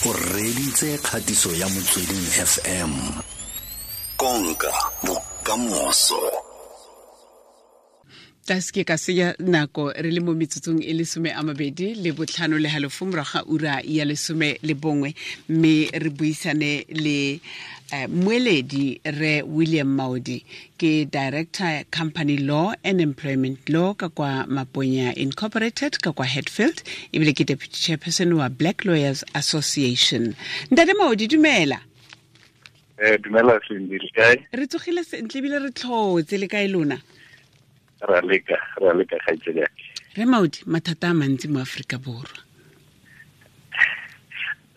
O reditse kgatiso ya Motsweding FM. Konka bokamoso. Tla seke ka senya nako re le mo metsotsong e lesome a mabedi le botlhano le halofo morago ga ura ya 11, mme re buisane le mmueledi re William Maodi, ke director, company law and employment law ka kwa Maponya Incorporated ka kwa Hatfield, ebile ke deputy chairperson wa Black Lawyers Association. Ntate Maodi, dumela. Dumela Cindy, le kae? Re tsogile sentle ebile re tlhotse, le kae lona? Ra leka, ra leka, kgaitsedi yake. Re Maodi, mathata a mantsi mo Aforika Borwa.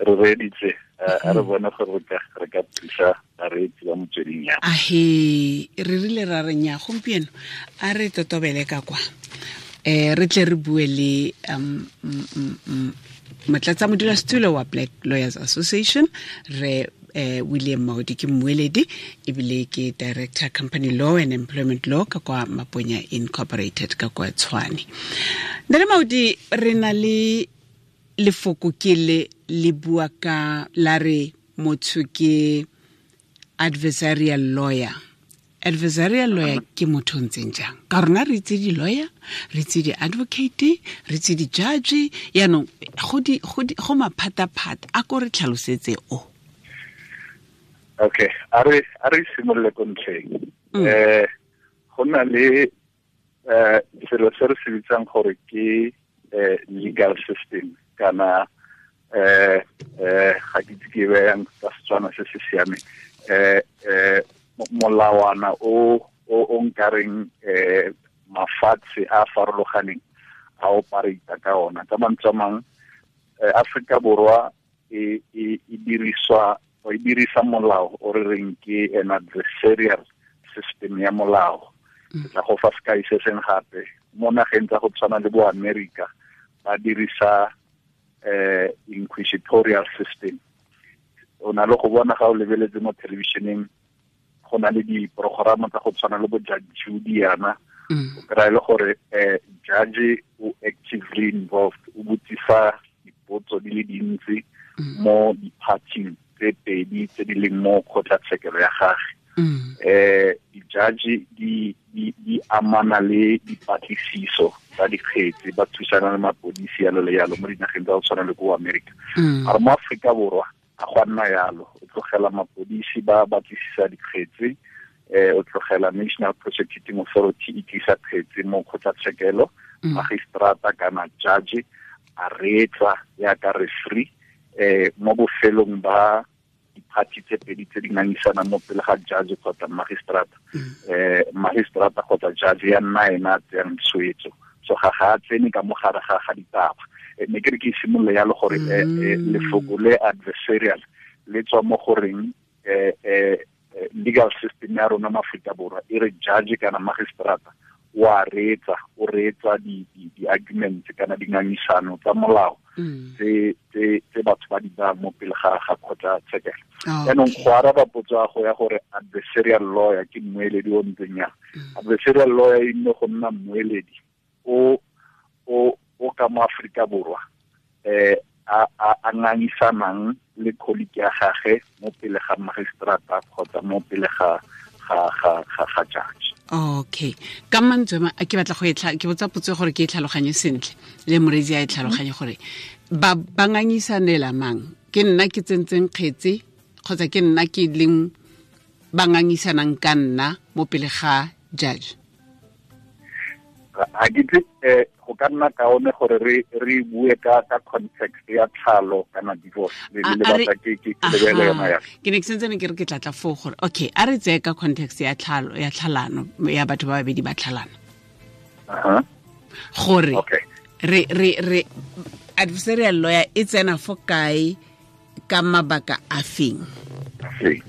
Re reeditse, a re bone gore re ka thusa bareetsi ba Motsweding ya. Ahe, re rile ra re nya gompieno a re totobele ka kwa, re tle re bue le motlatsa modulasetulo wa Black Lawyers Association, re William Maodi, ke mmueledi ebile ke director, company law and employment law ka kwa Maponya Incorporated ka kwa Tshwane. Ntate Maodi, re na le lefoko ke le le bua ka la re motho ke adversarial lawyer. Adversarial lawyer ke motho o ntseng jang? Ka rona re itse di-lawyer, re itse di-advocate, re itse di-judge, yaanong go maphata-phata. A ko re tlhalosetse o. Okay, a re simolole ko ntlheng. Go na le selo se re se bitsang gore ke legal system kana ga ke itse ke beyang ka Setswana se se siameng, molawana o nkareng mafatshe a farologaneng a operate ka ona. Ka mantswe a mang, Afrika Borwa e diriswa, o e dirisa molao o re reng ke an adversarial system ya molao. Ke tla go fa sekai se seng gape. Mo nageng tsa go tshwana le bo America, ba dirisa inquisitorial system. O na le go bona ga o lebeletse mo televisioneng, go na le diprograma tsa go tshwana le bo Judge Judy yana, o kry-a le gore judge o actively involved, o botsisa dipotso di le dintsi mo di-parting tse pedi tse di leng mo kgotlatshekelo ya gage. Di-judge di amana le dipatlisiso tsa dikgetse, ba thusana le mapodisi, yalo le yalo, mo dinageng tsa go tshwana le ko America. Mare mo Aforika Borwa a go nna yalo. O tlogela mapodisi ba batlisisa dikgetse, o tlogela National Prosecuting Authority e tlisa kgetse mo kgotlatshekelo, magistrata kana judge a reetsa yaka referee. Mo bofelong ba diphathi tse pedi tse di ngangisanang mo pele ga judge kgotsa magistrata, magistrata kgotsa judge ya nna ena a tseyang tshwetso. So ga a tsene ka mo gare ga ditaba. Ne ke re ke simolole yalo gore lefoko le adversarial le tswa mo goreng legal system ya rona mo Aforika Borwa e re judge kana magistrata wa reetsa, o reetsa di arguments kana dingangisano tsa molao tse batho ba di bayang mo pele ga kgotlatshekelo. Jaanong go araba potso ya go ya gore adversarial lawyer ke mmueledi o ntseng yang, adversarial lawyer e nne go nna mmueledi o ka mo Aforika Borwa a ngangisanang le colleague ya gage mo pele ga magistrata kgotsa mo pele ga judge. Okay, ka mantswe a ke batla go e ke botsa potso gore ke e tlhaloganye sentle le moreetsi a e tlhaloganye, gore ba ngangisanela mang? Ke nna ke tsentseng kgetse kgotsa ke nna ke leng ba ngangisanang ka nna mo pele ga judge? Ga ke itse, go ka nna kaone gore re bue ka context ya tlhalo kana divorce le batla ke lebele yona ya. Ke ne ke sentse ne ke re ke tlatla foo gore okay, a re tseye ka context ya tlhalo, ya tlhalano, ya batho ba babedi ba tlhalana, gore re adversarial lawyer e tsena fo kae, ka mabaka a feng? Okay,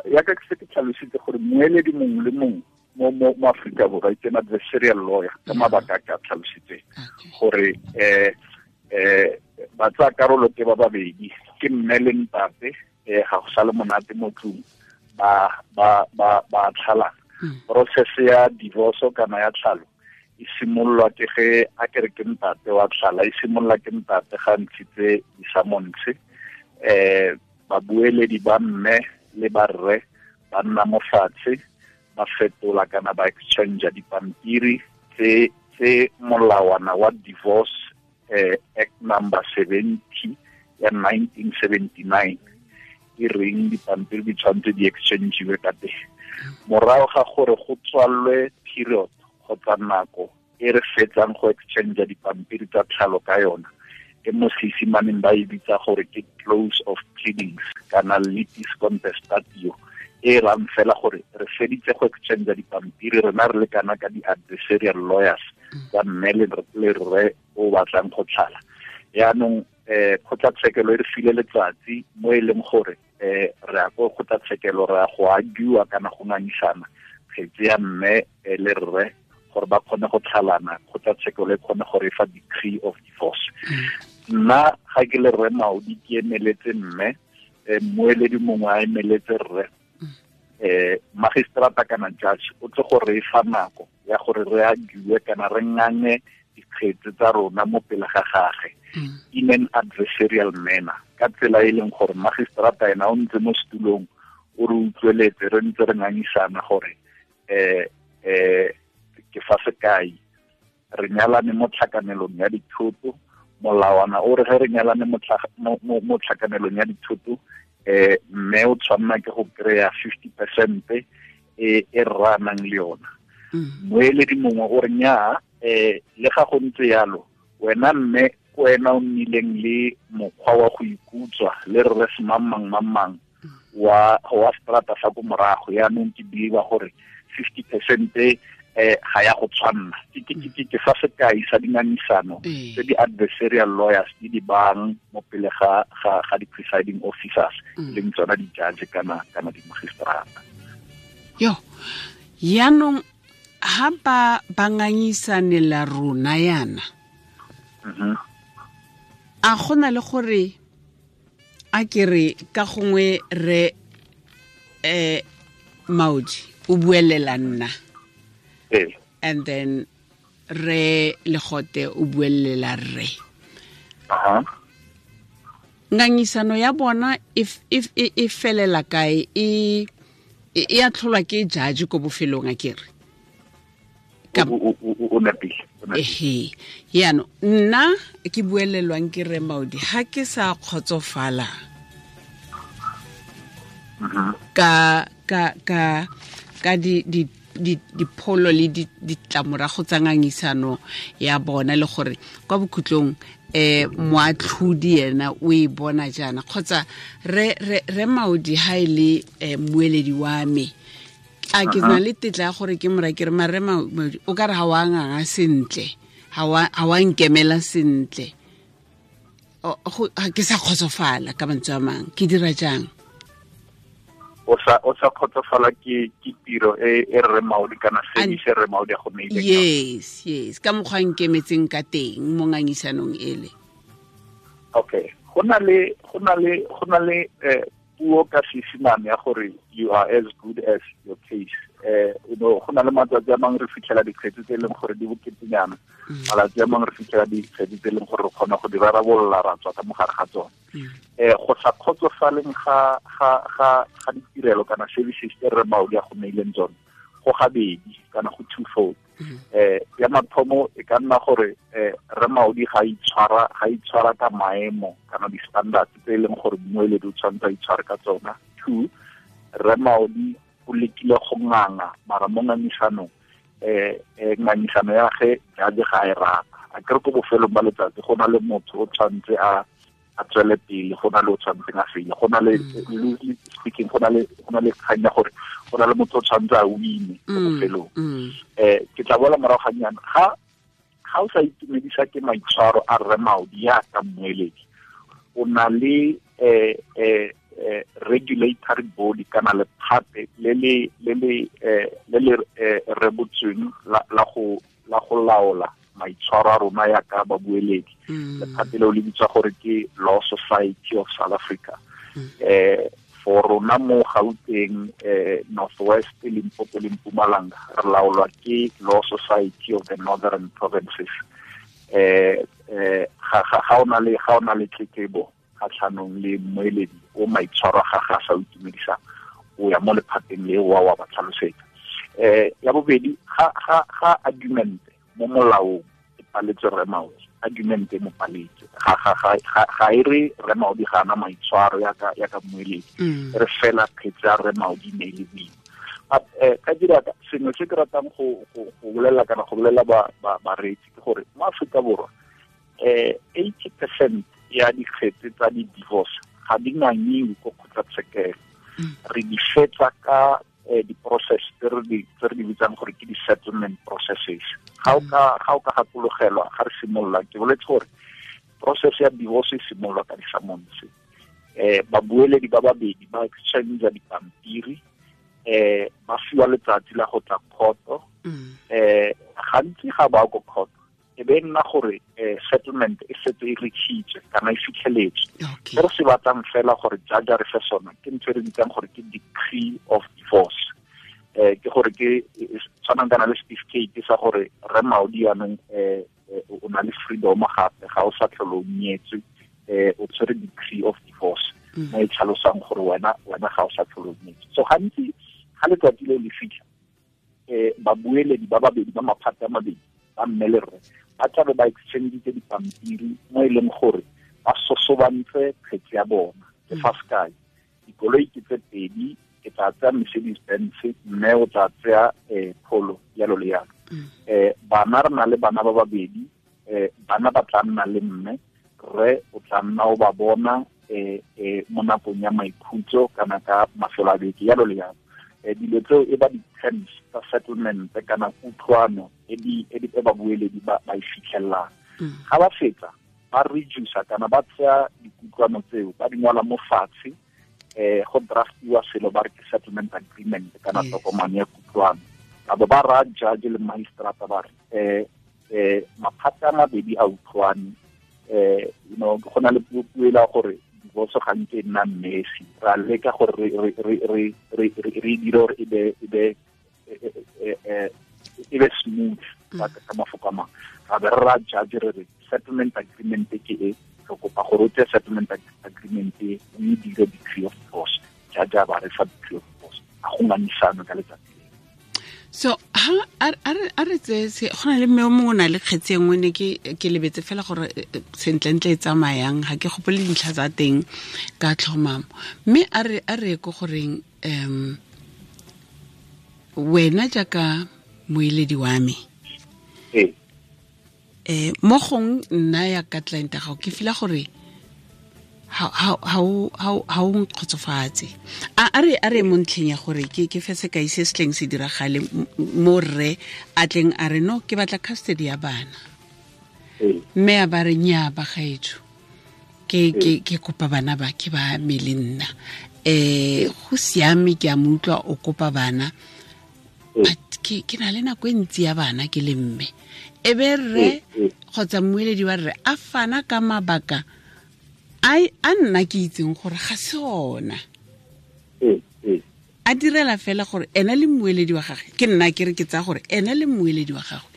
ya ka ke se ke tlhalositse gore mmueledi mongwe le mongwe mo Afrika Borwa ke an adversarial lawyer ka mabaka a ke a tlhalositseng, gore ba tsaya karolo ke ba babedi, ke mme le ntate, ga go sa le monate mo tlung, ba tlhalana. Process ya divorce kana ya tlhalo E simololwa ke ge a kere ke ntate wa tlhala, e simolola ke ntate ga ntshitse di-summons. Babueledi ba mme le ba rre ba nna mo fatshe, ba fetola kana ba exchange dipampiri tse molawana wa Divorce Act number 70 ya 1979 e reng dipampiri di tshwanetse di exchangiwe ka teng. Morago ga gore go tswalwe period kgotsa nako e re fetsang go exchange dipampiri tsa tlhalo ka yona, e mo Seesimaneng ba e bitsa gore ke close of pleadings kana litis contestatio, e rang fela gore re feditse go exchange dipampiri rena re le kana ka di-adversarial lawyers tsa mme le rre o batlang go tlhala. Yaanong kgotlatshekelo e re file letsatsi mo e leng gore re ya ko kgotlatshekelo, re ya go argue kana go ngangisana kgetse ya mme le rre gore ba kgone go tlhalana, kgotlatshekelo e kgone go re fa decree of divorce. Nna ga ke le rre Maudi ke emeletse mme, mmueledi mongwe a emeletse rre, magistrata kana judge o tle go re fa nako ya gore re argue kana re ngange dikgetse tsa rona mo pele ga gagwe in an adversarial manner, ka tsela e leng gore magistrata ena o ntse mo setulong o re utlweletse re ntse re ngangisana gore ke fa sekai re nyalane mo tlhakanelong ya dithoto, molawana o re ge re nyalane mo tlhakanelong ya dithoto, mme o tshwanna ke go kry-a 50% e rra nang le yona. Moeledi mongwe o re nnyaa, le ga go ntse yalo wena mme ke wena o nnileng le mokgwa wa go ikutswa le rre semang mang wa strata sa ko morago, yaanong ke believe gore 50% ga ya go tshwanna. Ke fa sekai sa dingangisano tse di-adversarial lawyers di di bang mo pele ga di-presiding officers, leng tsona di-judge kana di-magistrata. Yo, yaanong ha ba ngangisanela rona yana, a gona le gore a ke re ka gongwe re Maudi o buelela nna, and then re Legote o buelela rre. Ngangisano ya bona e felela kae? E a tlholwa ke judge ko bofelong a ke re? O nepile. Ehe, yaanong nna ke buelelwang ke re Maudi ha ke sa kgotsofala ka dipholo le ditlamorago tsa ngangisano ya bona, le gore kwa bokhutlong moatlhodi ena o e bona jaana, kgotsa re Maudi ha e le mmueledi wa me, a ke na le tetla ya gore ke mora ke re mare Maudi o ka re ga wa nganga sentle, ga wa nkemela sentle, ke sa kgotsofala ka mantswe a mang, ke dira jang? O sa kgotsofala ke tiro e rre Maudi kana service e rre Maudi a go neileng. Yes, ka mokgwa nkemetseng ka teng mo ngangisanong ele. Okay, go na le puo ka Seesimane ya gore you are as good as your case. You know, go na le matsatsi a mangwe re fitlhela dikgetse tse e leng gore di boketenyana, malatsi a mangwe re fitlhela dikgetse tse e leng gore re kgona go di rarabolola ra tswa ka mogare ga tsone. Go sa kgotsofaleng ga ditirelo kana services tse rre Maudi a go neileng tsone go gabedi kana go twofold. Ya mathomo e ka nna gore rre Maudi ga itshwara ka maemo kana di-standards tse e leng gore mmueledi o tshwanetse a itshware ka tsona. 2, rre Maudi o lekile go nganga mara mo ngangisanong ngangisano ya ge judge ga e rata. A kere ko bofelong ba letsatsi go na le motho o tshwanetse a tswele pele, go na le o tshwanetseng a fele, go na le loosely speaking go na le kgang ya gore go na le motho o tshwanetse a wine ko bofelong. Ke tla boela morago ga nnyane, ga o sa itumedisa ke maitshwaro a rre Maudi ya ka mmueledi, o na le regulatory body kana lephate le le rebotsweng la go laola maitshwaro a rona ya ka babueledi. Lephate leo le bitswa gore ke Law Society of South Africa. For rona mo Gauteng, Northwest, Limpopo le Mpumalanga, re laolwa ke Law Society of the Northern Provinces. Ga o na le tletlebo kgatlhanong le mmueledi o maitshwaro ga ga sa itumedisang, o ya mo lephateng le wa ba tlhalosetsa. Ya bobedi, ga argument mo molaong e paletse Rre Maudi, argument e mo paletse, ga e re Rre Maudi ga ana maitshwaro ya ka mmueledi, re fela kgetse ya Rre Maudi ne e le boima. Ka dira sengwe se ke ratang go bolela kana go bolela bareetsi ke gore mo Aforika Borwa 80% ya dikgetse tsa di-divorce ga di ngangiwe ko kgotlatshekelo. Re di fetsa ka di-process tse re di bitsang gore ke di-settlement processes. Ga o ka gakologelwa ga re simolola, ke boletse gore process ya divorce e simololwa ka di-summons. Babueledi ba babedi ba exchange dipampiri, ba fiwa letsatsi la go tla kgoto. Gantsi ga ba ko kgoto e be nna gore settlement e setse e reachitswe kana e fitlheletswe. Se re se batlang fela gore judge a re fe sona ke ntho e re bitsang gore ke decree of divorce. Ke gore ke tshwanang kana le certificate sa gore Rre Maudi yanong o na le freedom gape, ga o sa tlhole o nyetswe, o tshwere decree of divorce mo e tlhalosang gore wena ga o sa tlhole o nyetswe. So gantsi ga letsatsi leo le fitlha, babueledi ba babedi ba maphata a mabedi ba mme le rre ba tlabe ba exchange dipampiri mo e leng gore ba sosobantse kgetse ya bona. Ke fa sekai, dikoloi ke tse pedi, ke tla tsaya Mercedes Benz, mme o tla tsaya Polo, yalo le yalo. Bana re na le bana ba babedi, bana ba tla nna le mme, rre o tla nna o ba bona mo nakong ya maikhutso kana ka mafelo a beke, yalo le yalo. Dilo tseo e ba di-terms tsa settlement kana kutlwano e babueledi ba e fitlhellang. Ga ba fetsa ba reduce kana ba tsaya dikutlwano tseo ba di ngwala mo fatshe, go draftiwa selo ba re ke settlement agreement kana tokomane ya kutlwano. Ba bo ba raya judge le magistrata ba re maphata a mabedi a utlwane, you know, go na le puo e la gore divorce ga nke nna messy, ra leka gore re dire gore e be smooth ka mafoko a mangwe. Ra be re ra judge re re settlement agreement ke e, re kopa gore o tseye settlement agreement e o e dire decree of divorce. Judge a ba re fa decree of divorce, a go ngangisano ka letsatsi. So ha a re tse go na le mme o mongwe o na le kgetse e nngwe, ne ke lebetse fela gore sentlentle e tsamayang, ga ke gopole dintlha tsa teng ka tlhomamo. Mme a re ko goreng wena jaaka moeledi wa me, mo gong nna ya ka client ya gago ke fila gore ha o nkgotsofatse. A re mo ntlheng ya gore ke fe sekai se se tleng se diragale mo rre a tleng a re no ke batla custody ya bana, mme a ba re nnyaa bagaetsho, ke kopa bana ba ke ba me le nna, go siame ke a mo utlwa o kopa bana, but ke na le nako e ntsi ya bana ke le mme. E be rre kgotsa mmueledi wa rre a fana ka mabaka a nna ke itseng gore ga se ona. A direla fela gore ena le mmueledi wa gagwe, ke nna ke re ke tsaya gore ena le mmueledi wa gagwe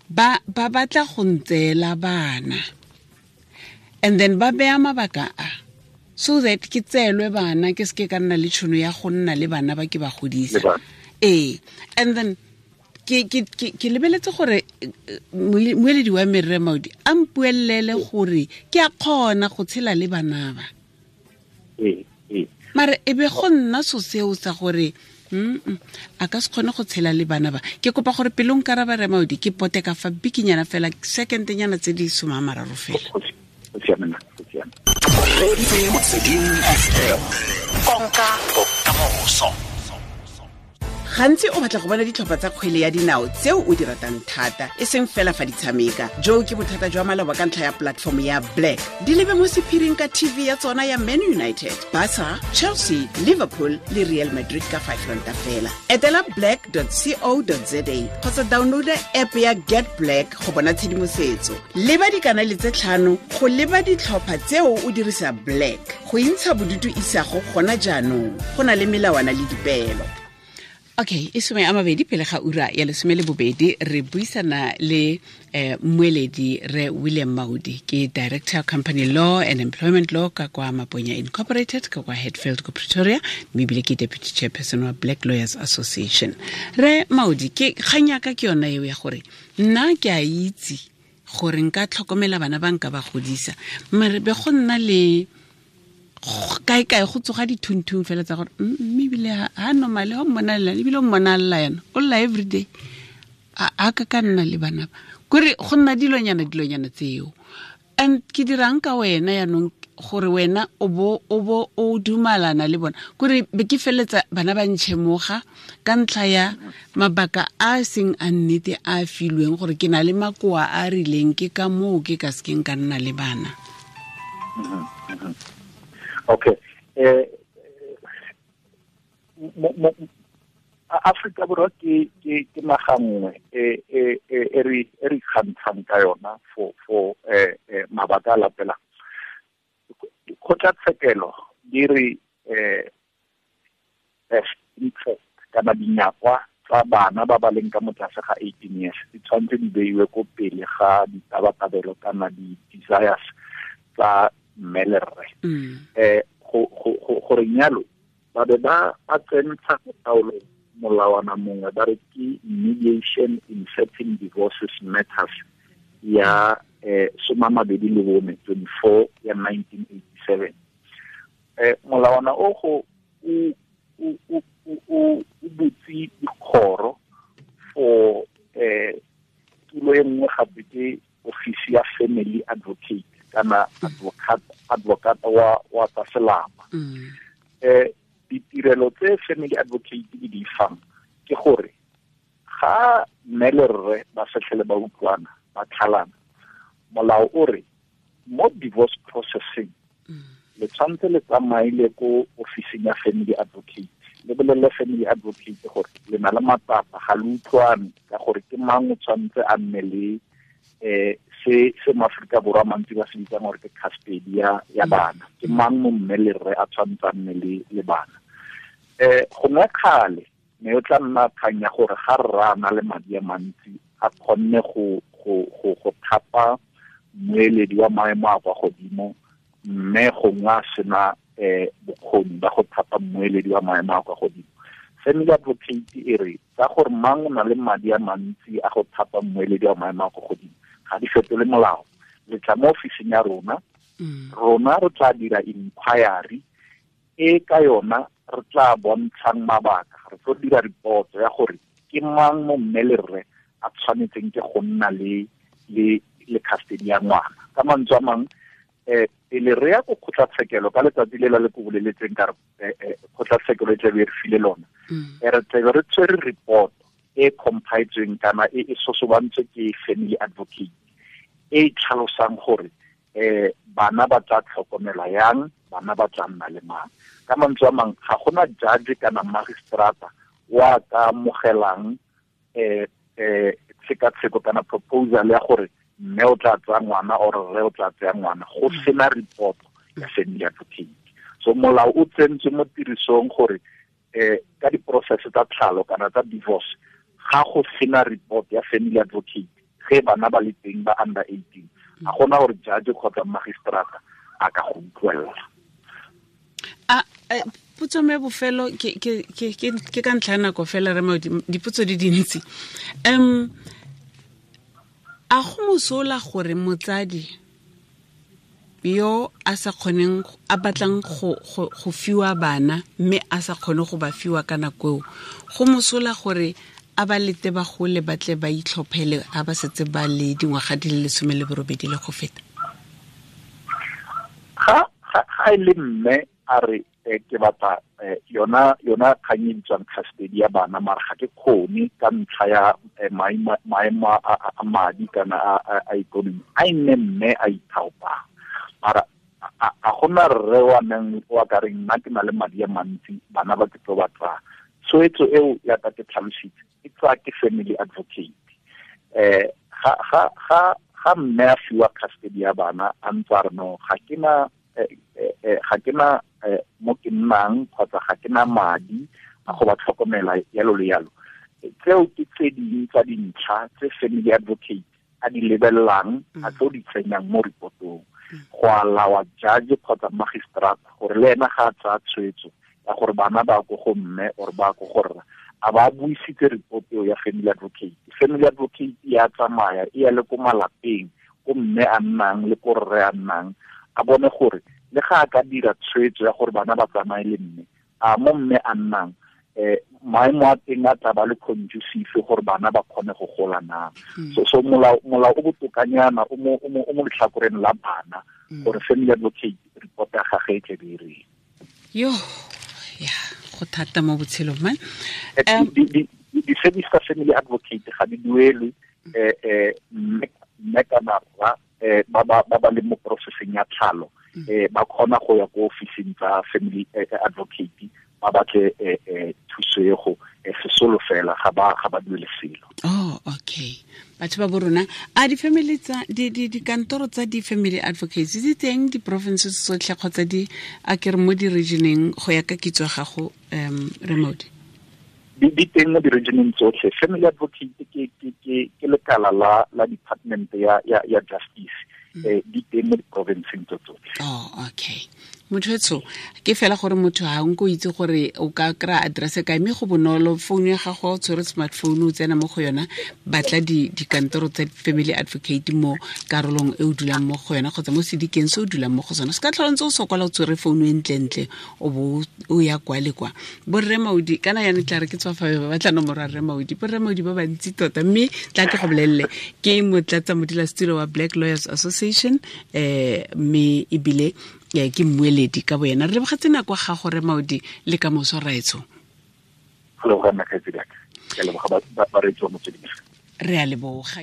ba batla go ntseela bana, and then ba beya mabaka a so that ke tseelwe bana, ke seke ka nna le tšhono ya go nna le bana ba ke ba godisa. And then ke lebeletse gore moeledi wa me Rre Maudi a mpuelele gore ke a kgona go tshela le bana ba. Mare e be go nna so seo sa gore a ka se kgone go tshela le bana ba. Ke kopa gore pele o nkaraba Rre Maudi ke pote ka fa bikinyana fela, second-nyana tse di 30 fela. Konka bokamoso. Gantsi o batla go bona ditlhopha tsa kgwele ya dinao tseo o di ratang thata, e seng fela fa di tshameka. Jo ke bothata jwa maloba ka ntlha ya platform ya Black. Di lebe mo sephiring ka TV ya tsona ya Man United, Barca, Chelsea, Liverpool le Real Madrid ka 5 ranta fela. Etela black.co.za kgotsa downloada app ya Get Black go bona tshedimosetso. Leba dikanale tse 5 go leba ditlhopha tseo o dirisa Black. Go intsha bodutu isago gona jaanong. Go na le melawana le dipeelo. Okay, e 20 pele ga ura ya 12 re buisana le mmueledi re William Maudi, ke Director Company Law and Employment Law ka kwa Maponya Incorporated ka kwa Hatfield ko Pretoria, mme ebile ke Deputy Chairperson wa Black Lawyers Association. Re Maudi, ke kgang ya ka ke yona eo ya gore nna ke a itse gore nka tlhokomela bana ba nka ba godisa, mare be go nna le kae kae go tsoga dithunthung fela tsa gore mme ebile ha normale ho mmona lla, ebile o mmona lla yana, o lla everyday, a ka nna le bana ba kore go nna dilonyana tseo. And ke dirang ka wena yaanong gore wena o bo o dumalana le bona, kore be ke feletsa bana ba ntšhemoga ka ntlha ya mabaka a seng a nnete a filweng gore ke na le makoa a rileng, ke ka moo ke ka sekeng ka nna le bana. Okay. Afrika Borwa ke naga nngwe e re ikgantshang ka yona for mabaka a latelang. Kgotlatshekelo di re best interest kana dinyakwa tsa bana ba ba leng ka mo tlase ga 18 years di tshwanetse di beiwe ko pele ga ditabatabelo kana di-desires tsa mme le rre. Gore nyalo ba be ba tsentsha taolo molawana mongwe ba re ke mediation in certain divorces matters ya 24 24 ya 1987. Molawana o go o butse dikgoro for tulo e nngwe gape ke office ya family advocate kana advocate wa tsa selapa. Ditirelo tse family advocate di di fang ke gore ga mme le rre ba setlhele ba utlwana ba tlhalana, molao o re mo divorce processing le tshwanetse le tsamaile ko officing ya family advocate, le bolelele family advocate gore le na le matsapa, ga le utlwane ka gore ke mang o tshwanetse a nne le se Maaforika Borwa mantsi ba se bitsang gore ke custody ya bana, ke mang mo mme le rre a tshwanetse a nne le bana. Gongwe kgale mme o tla nna kgang ya gore ga rra a na le madi a mantsi a kgonne go thapa mmueledi wa maemo a kwa godimo, mme gongwe a sena bokgoni ba go thapa mmueledi wa maemo a kwa godimo. Family advocate e re tsa gore mang o na le madi a mantsi a go thapa mmueledi wa maemo a kwa godimo ga di fetole molao. Le tla mo ofising ya rona, rona re tla dira inquiry e ka yona re tla bontshang mabaka, re tlo dira report ya gore ke mang mo mme le rre a tshwanetseng ke go nna le custody ya ngwana. Ka mantswe a mang, pele re ya ko kgotlatshekelo ka letsatsi le la le ko boleletseng ka re kgotlatshekelo e tlabe re file lona, re tlabe re tshwere report e compiletsweng kana e sosobantswe ke family advocate e tlhalosang gore bana ba tla tlhokomelwa yang, bana ba tla nna le mang. Ka mantswe a mang, ga gona judge kana magistrata wa ka amogelang tshekatsheko kana proposal ya gore mme o tla tsaya ngwana or rre o tla tsaya ngwana go sena report ya family advocate. So molao o tsentswe mo tirisong gore ka di-process tsa tlhalo kana tsa divorce ga go sena report ya family advocate ge bana ba le teng ba under 18, ga gona gore judge kgotsa magistrata a ka go utlwelela. Potso me bofelo ke ka ntlha ya nako fela re Maudi, dipotso di dintsi. A go mosola gore motsadi yo a sa kgoneng a batlang go fiwa bana mme a sa kgone go ba fiwa ka nako eo, go mosola gore a ba lete ba gole ba tle ba itlhophele a ba setse ba le dingwaga di le 18 le go feta? Ga e le mme a re Ke batla yona kgang e bitswang custody ya bana, mara ga ke kgone ka ntlha ya maemo a madi kana a ikonomi, a e nne mme a ithaopang. Mara a gona rre wa neng wa ka reng nna ke na le madi a mantsi, bana ba ke tlo ba tsaya. Tshwetso eo ya ka ke tlhalositse e tsaya ke family advocate. Ga mme a fiwa custody ya bana a ntse a re no, ga ke na mo ke nnang kgotsa ga ke na madi a go ba tlhokomela yalo le yalo, tseo ke tse dingwe tsa dintlha tse family advocate a di lebelelang, a tlo di tsenyang mo reportong go alawa judge kgotsa magistrate gore le ena ga a tsaya tshwetso ya gore bana ba ko go mme or ba ko go rra, a ba buisitse report eo ya family advocate. Family advocate ya tsamaya e ya le ko malapeng ko mme a nnang le ko rre a nnang, a bone gore le ga a ka dira tshwetso ya gore bana ba tsamaye le mme, a mo mme a nnang maemo a teng a tla ba le conducive gore bana ba kgone go gola na. So molao o botokanyana o mo letlhakoreng la bana gore family advocate report ya gagwe e tle be e reng. Yo, ya go thata mo botshelong man. Di-service tsa family advocate ga di duelwe, mme kana rra ba ba leng mo processing ya tlhalo ba kgona go ya ko officing tsa family advocate ba batle thuso e go sesolo fela, ga ba duele selo. Oh, okay. Batho ba borona, a di-family tsa dikantoro tsa di-family advocates di teng di-provinces tsotlhe kgotsa di a ke re mo di-regioneng go ya ka kitso ya gago, Remote? Di teng mo di-regioneng tsotlhe. Family advocate ke lekala la department ya justice, di teng mo di-provinceng tsotlhe. Oh, okay. Motho etsho ke fela gore motho ha nko itse gore o ka kry-a address kae, mme go bonolo, phone ya gago o tshwere smartphone o tsena mo go yona, batla dikantoro tsa family advocate mo karolong e o dulang mo go yona kgotsa mo sedikeng se o dulang mo go sona. Se ka tlhola ntse o sokola o tshwere phone e ntlentle o bo o ya kwa le kwa. Borre Maudi, kana yana tla re ke tswa fa ba batla nomoro ya Rre Maudi, borre Maudi ba bantsi tota, mme tla ke go bolelele ke motlatsa modulasetulo wa Black Lawyers Association, mme ebile ke mmueledi ka boyena. Re lebogetse nako ga gore Maudi le ka moso raetsho. Re a leboga.